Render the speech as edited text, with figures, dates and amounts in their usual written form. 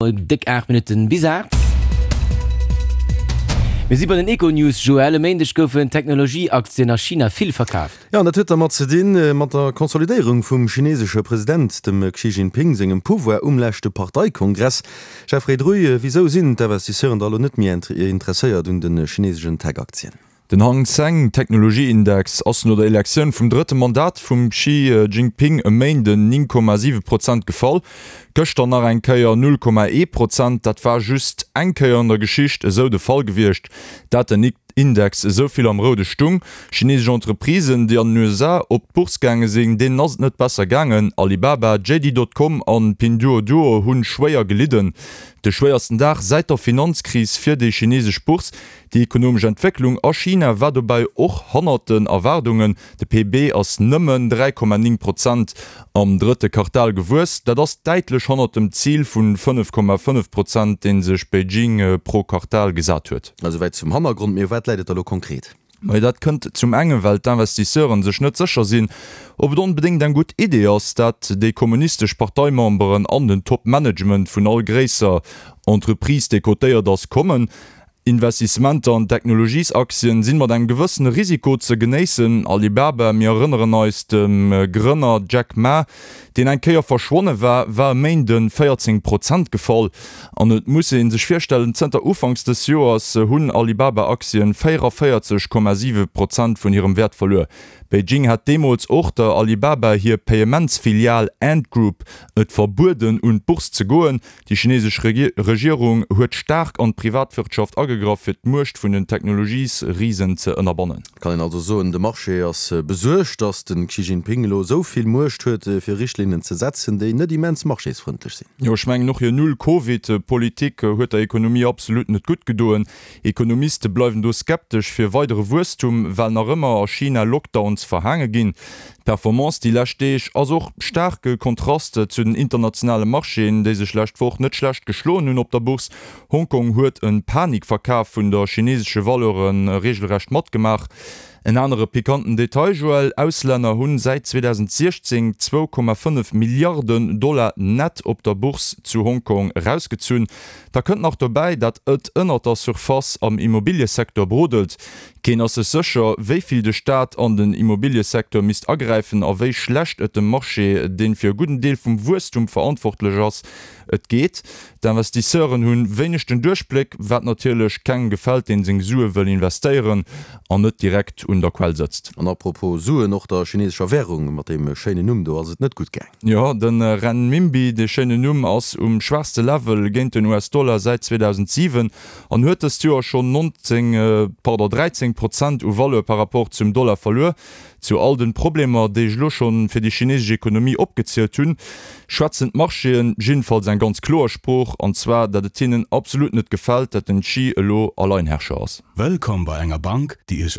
Déck 8 Minutten bis 8. Mir si bei den Econews, Joël. E Méindeg goufen Technologieaktien a China vill verkaaft. Jo, an dat huet dermat ze dinn, mat der Konsolidéierung vum chinesesche President, dem Xi Jinping sengem Pouvoir um leschte Parteikongress. Jeffrey Druy, wisou sinn d'Investisseuren da elo net méi interesséiert un de chinesegen Tech-Aktien? Den Hang Seng Technologieindex ass no der Elektioun vum drëtte Mandat vum Xi Jinping e Méinden 9,7 Prozent gefall, gëschter nach eng Kéier 0,1 Prozent. Dat war just eng Kéier an der Geschicht esou de Fall gewiescht, dat den Index esou vill am Roude stung. Chinesesch Entreprisen, déi an den USA op d'Bourse gaange sinn, deenen ass et net besser gaangen. Alibaba, JD Dot Com an Pinduoduo hu schwéier gelidden. De schwéiersten Dag säit der Finanzkris fir déi chinesesch Bourse. Déi ekonomesch Entwécklung a China war dobäi och hannert den Erwaardungen. De PIB ass nëmmen 3,9 Prozent am drëtte Quartal gewuess. Dat ass däitlech hannert dem Zil vu 5,5 Prozent, dee sech Beijing pro Quartal gesat huet. Esouwäit zum Hannergrond. Mee u wat läit et da lo konkret? Majo, dat kënnt zum enge well d'Investisseuren sech net sécher sinn, ob et onbedéngt eng gutt Idee ass, dat déi kommunistesch Parteimemberen an den Top-Management vun all gréisser Entreprise, déi cotéiert ass, kommen. Investissementer an Technologiesaktien sinn mat engem gewëssene Risiko ze genéissen. Alibaba, mir erënneren eis, dem Grënner Jack Ma, deen eng Kéier verschwonne war, war e Méinde 14 Prozent gefall. An et muss ee sech virstellen, zënter Ufanks dës Joers hunn Alibaba-Aktien 44,7 Prozent vun hirem Wäert verluer. Beijing hat deemools och der Alibaba hir Payementsfilial Ant Group et verbueden un d'Bourse ze goen. Déi chinesesch Regierung huet staark an d'Privatwirtschaft agegraff, fir d'Muecht vun den Technologiesrisen ze ënnerbannen. Et kann een also soen, de Marché ass besuergt, datt de Xi Jinping elo esou vill Muecht huet, fir Richtlinnen ze setzen, déi net immens marchésfrëndlech sinn. Jo, ech mengen och hir Null-Covid-Politik huet der Ekonomie absolut net gutt gedoen. Ekonomiste bleiwen do skeptesch fir weidere Wuesstum, well nach ëmmer a China Lockdowns verhaange ginn. D'Performance déi lescht Deeg ass och staarke Kontrast zu den internationale Marchéen, déi sech lescht Woch net schlecht geschloen hunn op der Bourse. Hongkong huet e Panikverkaf vun der chinesesche Valeure reegelrecht matgemaach. En anere pikanten Detail, Joël, Auslänner hunn säit 2016 2,5 Milliarden Dollar nett op der Bourse zu Hongkong erausgezunn. Da kënnt nach dobäi, dat ët ënnert der Surface am Immobiliësecteur brodelt. Keen ass sech sécher, wéi vill de Staat an den Immobiliësecteur misst agräifen a wéi schlecht et dem Marché, deen fir e gudden Deel vum Wuesstum verantwortlech ass, et geet. D'Investisseuren hunn wéineg den Duerchbléck, wat natierlech kengem gefält, deen seng Sue wëll investéieren an net direkt un der Quell sëtzt. An apropos Suen, och der chinesescher Währung mat deem schéinen Numm do ass et net gutt gaang. Jo, de Renminbi, dee schéinen Numm, ass um schwaachste Level géint den US-Dollar säit 2007 an huet dëst Joer schonn 19, pardon, 13 Prozent u Valeur par rapport zum Dollar verluer. Zu all den Problemer, déi ech elo schonn fir déi chinesesch Ekonomie opgezielt hunn, schwätzen d'Marchéen jiddefalls eng ganz kloer Sprooch, an zwar dat et hinnen absolut net gefält, dat den Xi elo Alleinherrscher ass. Wëllkomm bei enger Bank, déi Iech.